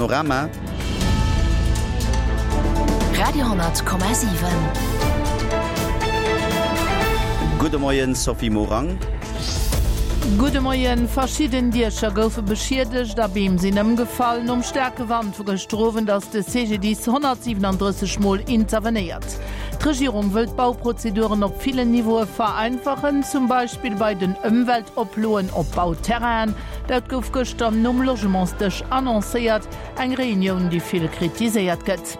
Panorama. Radio,7. Gudde Moien, Sophie Morang. Gudde Moien. Verschidden Diecher goufe beschiedegt a Beem sinn ëmgefall. Nom staarke Wand vu gëschter Owend ass de CGDIS 137 Mol intervenéiert. D'Regierung wëll d'Bauprozeduren op villen Niveaue vereinfachen, zum Beispill bei den Ëmweltoploen op Bauterrainen. Dat gouf gëschter nom Logementsdësch annoncéiert, eng Reunioun, déi vill kritiséiert gëtt.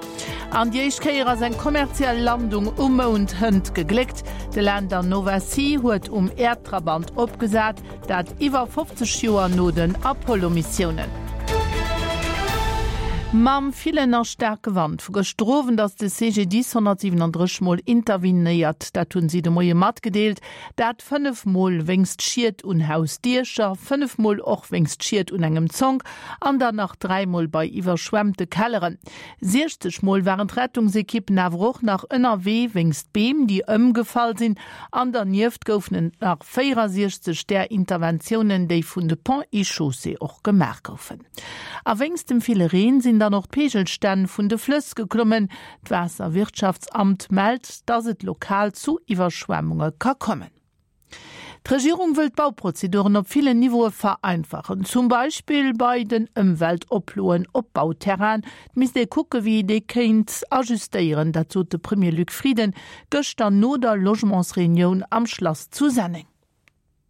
An déi éischt Kéier ass eng kommerziell Landung um Mound hënt gegléckt. De Lander Nova C huet um Äerdtrabant opgesat, dat iwwer 50 Joer no den Apollo-Missiounen. Mam villen a staarke Wand vu gëschter Owend ass de CGDIS 137 Mol intervenéiert. Dat hunn si de Moie matgedeelt. Dat 5 Mol wéinst Schied un Hausdiecher, 5 Mol och wéinst Schied un engem Zonk an dann nach 3 Mol bei iwwerschwemmte Kelleren. 60 Mol waren d'Rettungsekippen awer och nach ënnerwee wéinst Beem, déi ëmgefall sinn. An dernieft goufen et nach 64 där Interventiounen, déi vun de Ponts et Chaussées och gemaach goufen. A wéinst dem ville Reen sinn dann och d'Peegelstänn vun de Flëss geklommen. D'Waasserwirtschaftsamt mellt, dass et lokal zu Iwwerschwemmunge ka kommen. D'Regierung wëll d'Bauprozeduren op villen Niveaue vereinfachen, zum Beispill bei den Ëmweltoploen op Bauterrainen. Et misst ee kucke wéi ee déi kéint ajustéieren, dat sot de Premier Luc Frieden gëschter no der Logementsreunioun am Schlass zu Senneng.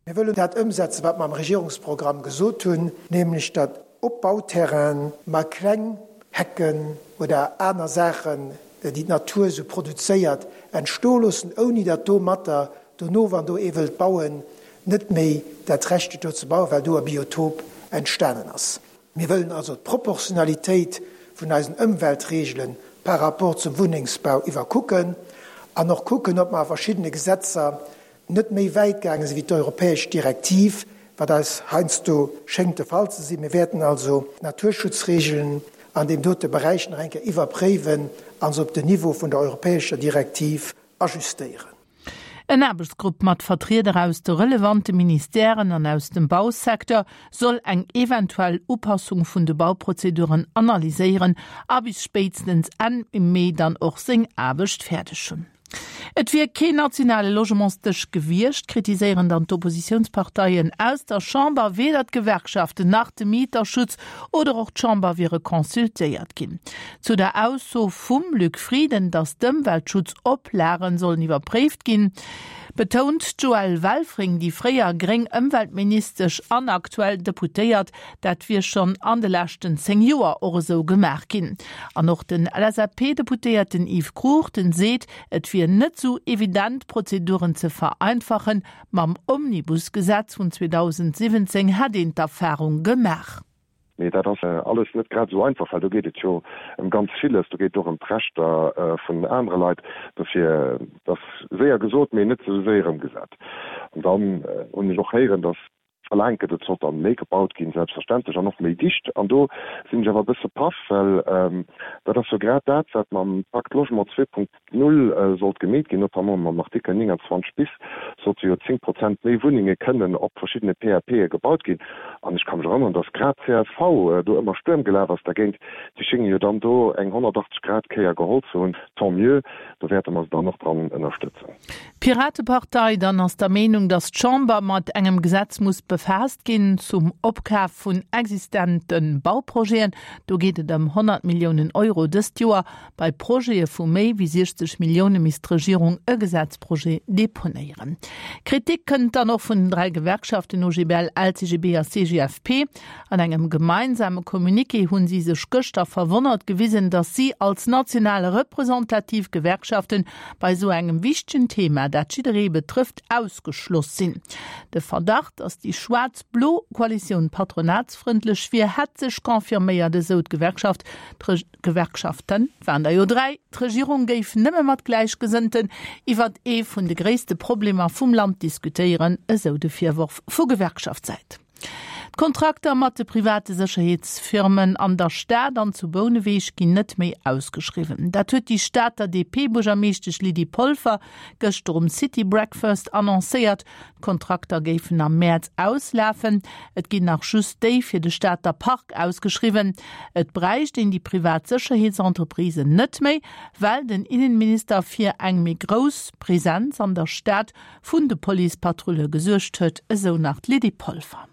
Mir wëllen dat ëmsetzen, wat mer am Regierungsprogramm gesot hunn, nämlech datt op Bauterrainen mer kleng Hecken oder aner Saachen, déi d'Natur esou produzéiert, entstoe loossen, ouni datt domatter dono, wann do ee wëllt bauen, net méi dat Recht huet do ze bauen, well do e Biotop entstanen ass. Mir wëllen also d'Proportionalitéit vun eisen Ëmweltregele par rapport zum Wunnengsbau iwwerkucken an och kucken, ob mer a verschiddene Gesetzer net méi wäit gaange sinn wéi d'europäesch Direktiv, wat eis heiansdo schéngt de Fall ze sinn. Mir wäerten also d'Naturschutzregeln an deem dote Beräich nach eng Kéier iwwerpréiwen a se op den Niveau vun der europäescher Direktiv ajustéieren. En Aarbechtsgrupp mat Vertrieder aus de relevante Ministèren an aus dem Bausecteur soll eng eventuell Upassung vun de Bauprozeduren analyséieren a bis spéitstens Enn Mee dann och seng Aarbecht fäerdeg hunn. Et wier keen nationale Logementsdësch gewiescht, kritiséieren dann d'Oppositiounsparteien aus der Chamber. Weder d'Gewerkschaften nach de Mieterschutz oder och d'Chamber wiere consultéiert ginn. Zu der Ausso vum Luc Frieden, datt d'Ëmweltschutzoplagen sollen iwwerpréift ginn, betount d'Joëlle Welfring, déi fréier gréng Ëmweltministesch an aktuell Deputéiert, dat wier schonn an de leschten 10 Joer och esou gemaach ginn. An och den LSAP-Deputéierten Yves Cruchten seet, et wier net esou evident, d'Prozeduren ze vereinfachen. Mam Omnibus-Gesetz vun 2017 hätt een d'Erfarung gemaach. Mee dat ass alles net grad esou einfach, well do geet et jo ëm ganz villes. Do geet et och ëm d'Rechter vun anere Leit. Dofir, et ass séier gesot, mee net esou séier ëmgesat. An dann hunn ech och héieren, datt verlaangt gëtt, et sollt dann méi gebaut ginn, selbstverständlech, an och méi dicht. An do sinn ech awer e bësse paff, well dat ass jo grad dat, wat mam Pacte Logement 2.0 sollt gemeet ginn, notamment mam Artikel 29 bis sollte jo 10 Prozent méi Wunnenge kënnen op verschiddene PAPe gebaut ginn. An ech ka mech erënneren, datt grad csv do ëmmer Stuerm gelaf ass dergéint. Déi schénge jo dann do eng 180 Grad Kéier geholl ze hunn. Tant mieux, do wäerte mer se dann och dran ënnerstëtzen. D'Piratepartei dann ass der Meenung, datt d'Chamber mat engem Gesetz muss befaasst ginn zum Opkaf vun existente Bauprojeten. Do geet et ëm 100 Milliounen Euro dëst Joer. Bei Projete vu méi wéi 60 Millioune misst d'Regierung e Gesetzprojet deponéieren. Kritik kënnt dann och vun den 3 Gewerkschaften OGBL, LCGB a CGFP. An engem gemeinsame Communiqué hunn si sech gëschter verwonnert gewisen, datt si als national representativ Gewerkschaften bei esou engem wichtegen Thema, dat jidderee betrëfft, ausgeschloss sinn. De Verdacht, datt déi schwaarz-blo Koalitioun patronatsfrëndlech wier, hätt sech confirméiert, esou d'Gewerkschaft. Gewerkschaften waren der jo 3, d'Regierung géif nëmme mat Gläichgesënnten iwwert ee vun de gréisste Problemer vum Land diskutéieren, esou de Virworf vu Gewerkschaftssäit. D'Kontrakter mat de private Sécherheetsfirmen an der Stad an zu Bouneweg ginn net méi ausgeschriwwen. Dat huet déi Stater DP-Buergermeeschtesch Lydie Polfer gëschter um City Breakfast annoncéiert. D'Kontrakter géifen am Mäerz auslafen. Et ginn nach just déi fir de Stater Park ausgeschriwwen. Et bräicht een déi privat Sécherheetsentreprisen net méi, well den Innenminister fir eng méi grouss Presenz an der Stad vun de Policepatrulle gesuergt huet, esou nach d'Lydie Polfer.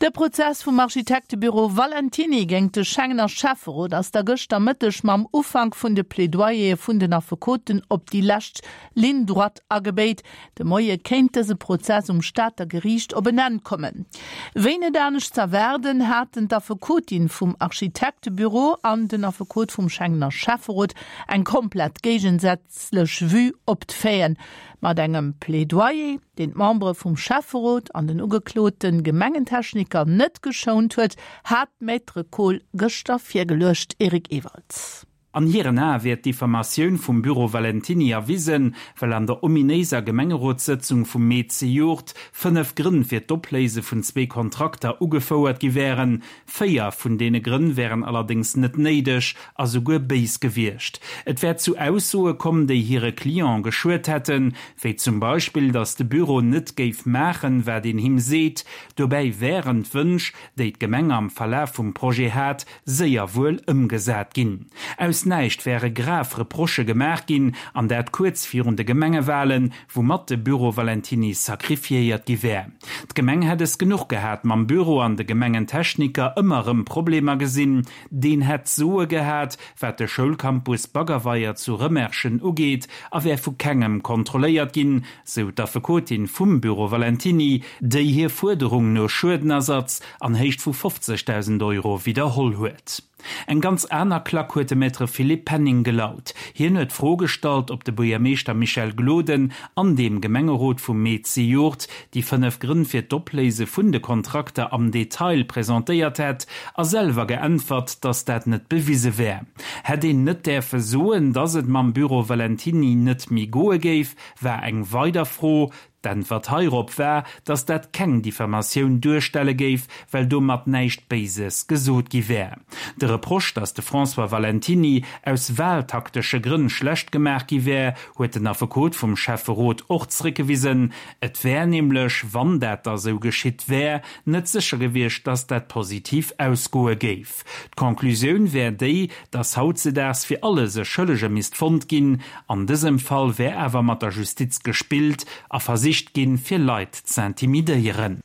De Prozess vum Architektebüro Valentiny géingt de Schengener Schäfferot ass da gëschter Mëtteg mam Ufank vun de Plädoyere vun den Affekoten op déi lescht Ligne droite agebéit. De Moie kéint dëse Prozess um Stater Geriicht op en Enn kommen. Wéi net anescht z'erwaarden, haten d'Affekotin vum Architektebüro an den Affekot vum Schengener Schäfferot eng komplett géigensätzlech Lech Vue op d'Faiten mat engem Plädoyer, deen d'Membere vum Schäfferot an den ugeklote Gemengentechniker net geschount huet, hat d'Maître Kohl gëschter virgeluecht. Eric Ewald. An hiren Ae wier d'Diffamatioun vum Büro Valentiny erwisen, well an der ominéiser Gemengerotssëtzung vum Mee zejoert 5 Grënn fir d'Opléise vun zwee Kontrakter ugefouert gi wären, Véier vun deene Grënn wären allerdéngs net néideg a souguer béis gewiescht. Et wär zu Aussoe komm, déi hire Client geschuet hätten, wéi zum Beispill, datt de Büro net géif maachen, wat een him seet. Dobäi wären d'Wënsch, déi d'Gemeng am Verlaf vum Projet hat, séier wuel ëmgesat ginn. Aus näischt wäre grav Reprochë gemaach ginn, an dat kuerz virun de Gemengewalen, woumat de Büro Valentiny sacrifiéiert gi wär. D'Gemeng hätt es genuch gehat mam Büro an de Gemengentechniker ëmmer erëm Problemer gesinn. Deen hätt d'Soe gehat, wat de Schoulcampus Baggerweier zu Rëmerschen ugeet a wär vu kengem kontrolléiert ginn, sou d'Affekotin vum Büro Valentiny, déi hir Fuerderung no Schuedenersatz an Héicht vu 50.000 Euro widderholl huet. Eng ganz aner Klack huet de Maître Philippe Penning gelaut. Hien huet d'Fro gestallt, ob de Buergermeeschter Michel Gloden an deem Gemengerot vum Mee zejoert déi 5 Grënn fir d'Opléise vun de Kontrakter am Detail presentéiert hätt a selwer geäntwert, datt dat net bewise wär. Hätt een net däerfe soen, datt et mam Büro Valentiny net méi goe géif, war eng weider Fro. D'Äntwert heirop war, datt dat keng Diffamatioun duerstelle géif, well domat näischt Béises gesot gi wär. De Reproche, datt de François Valentiny aus wahltaktesche Grënn schlecht gemaach gi wär, huet den Affekot vum Schäfferot och zréckgewisen. Et wär nämlech, wann dat da sou geschitt wär, net sécher gewiescht, datt dat positiv ausgoe géif. D'Conclusioun wär déi, datt hautzedaags fir alles e Schëllege misst fonnt ginn. An dësem Fall wär awer mat der Justiz gespillt a versicht ginn, fir Leit z'intimidéieren.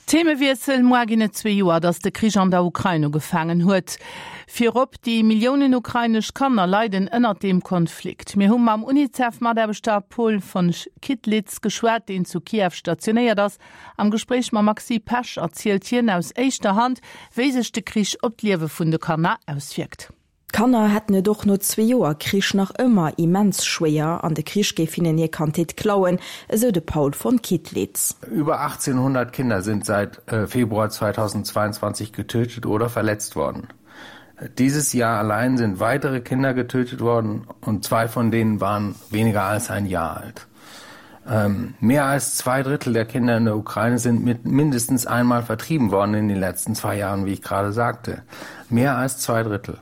Themewiessel, Moar ginn et zwee Joer, datt de Krich an der Ukrain ugefaangen huet. Virop déi Milliounen ukrainesch Kanner leiden ënnert deem Konflikt. Mir hu mam Unicef-Mataarbechter Paul von Kittlitz geschwat, deen zu Kiew stationéiert ass. Am Gespréich mam Maxi Pesch erzielt hien aus éischter Hand, wéi sech de Krich op d'Liewe vun de Kanner auswierkt. D'Kanner hätten et och no zwee Joer Krich nach ëmmer immens schwéier an de Krich géif hinnen hir Kandheet klauen, esou de Paul von Kittlitz. Über 1800 Kinder sind seit Februar 2022 getötet oder verletzt worden. Dieses Jahr allein sind weitere Kinder getötet worden und zwei von denen waren weniger als ein Jahr alt. Ähm, mehr als zwei Drittel der Kinder in der Ukraine sind mit mindestens einmal vertrieben worden in den letzten zwei Jahren, wie ich gerade sagte. Mehr als zwei Drittel.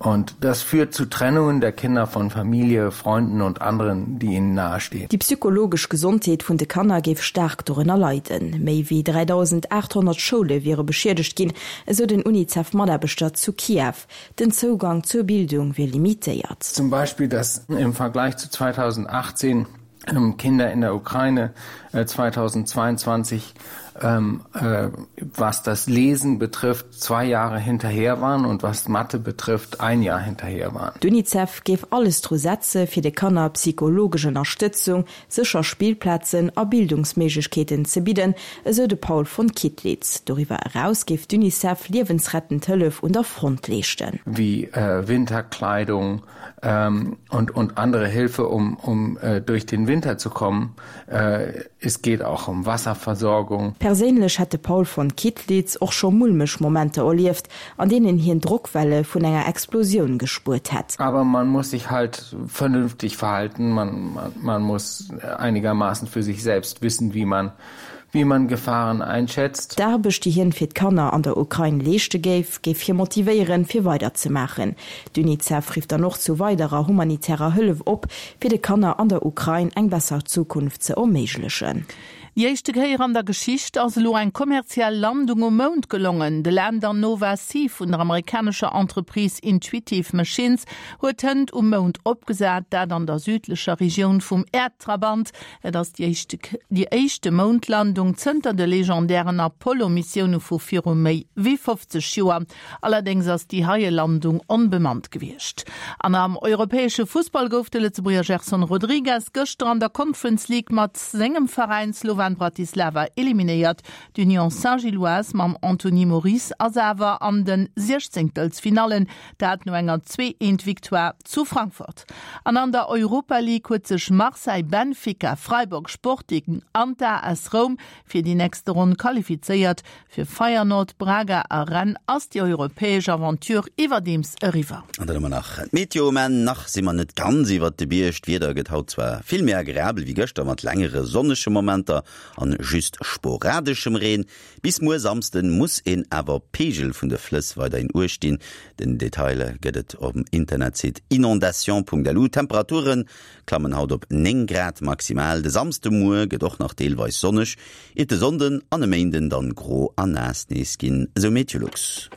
Und das führt zu Trennungen der Kinder von Familie, Freunden und anderen, die ihnen nahestehen. Déi psychologesch Gesondheet vun de Kanner géif staark dorënner leiden. Méi wéi 3.800 Schoule wiere beschiedegt ginn, esou den Unicef-Mataarbechter zu Kiew. Den Zougang zur Bildung wier limitéiert. Zum Beispiel, dass im Vergleich zu 2018 Kinder in der Ukraine 2022 ähm, äh, was das Lesen betrifft, zwei Jahre hinterher waren und was Mathe betrifft, ein Jahr hinterher waren. D'Unicef géif alles dru setze fir de Kanner psychologesch Ënnerstëtzung, sécher Spillplazen a Bildungsméiglechkeeten ze bidden, esou de Paul von Kittlitz. Doriwwer eraus géif d'Unicef liewensrettend Hëllef un der Front leeschten. Wéi Winterkleidung, ähm, und, und andere Hilfe, um, um äh, durch den Winter zu kommen. Äh, es geht auch um Wasserversorgung. Perséinlech hätt de Paul von Kittlitz och scho mulmeg Momenter erlieft, an deenen hien Drockwelle vun enger Explosioun gespuert hätt. Aber man muss sich halt vernünftig verhalten, man, man, man muss einigermaßen für sich selbst wissen, wie man. Wie man Gefahren einschätzt. D'Aarbecht, déi hien fir d'Kanner an der Ukrain leeschte géif, géif hie motivéieren, fir weider ze maachen. D'Unicef rifft dann och zu weiderer humanitärer Hëllef op, fir de Kanner an der Ukrain eng besser Zukunft ze erméiglechen. Déi éischte Kéier an der Geschicht ass elo eng kommerziell Landung um Mound gelongen. De Lander Nova C vun der amerikanescher Entreprise Intuitive Machines huet hënt um Mound opgesat, dat an der südlecher Regioun vum Äerdtrabant. Et ass déi éischte déi éischte Moundlandung zënter de legendären Apollo-Missioune vu viru méi wéi 50 Joer. Allerdéngs ass déi heie Landung onbemannt gewiescht. An am europäesche Fussball gouf de Lëtzebuerger Gerson Rodrigues gëschter an der Conference League mat sengem Veräin Slovan Bratislava eliminéiert. D'Union Saint-Gilloise mam Anthony Moris ass awer an de Siechzéngtelsfinallen, dat no enger 2, 1 Victoire zu Frankfurt. An an der Europa League huet sech Marseille, Benfica, Freiburg, Sporting an d'AS Roum fir déi nächste Ronn qualifizéiert. Fir Feyenoord, Braga a Rennes ass déi europäesch Aventure iwwerdeems eriwwer. An dann hu mer nach d'Meteo. Mä nach si mer net ganz iwwert de Bierg. D'Wieder gëtt haut zwar vill méi agreabel wéi gëschter, mat längere sonnege Momenter an just sporadeschem Reen. Bis muer Samsden muss een awer op d'Peegel vun de Flëss weiderhin Uecht dinn. Den Detail gëtt et um Internetsite inondation.lu. D'Temperature klammen haut op 9 Grad maximal. De Samsdemuer gëtt och nach deelweis sonneg, iert de Sonnden an e Méinden dann gro a naass nees ginn, esou Meteolux.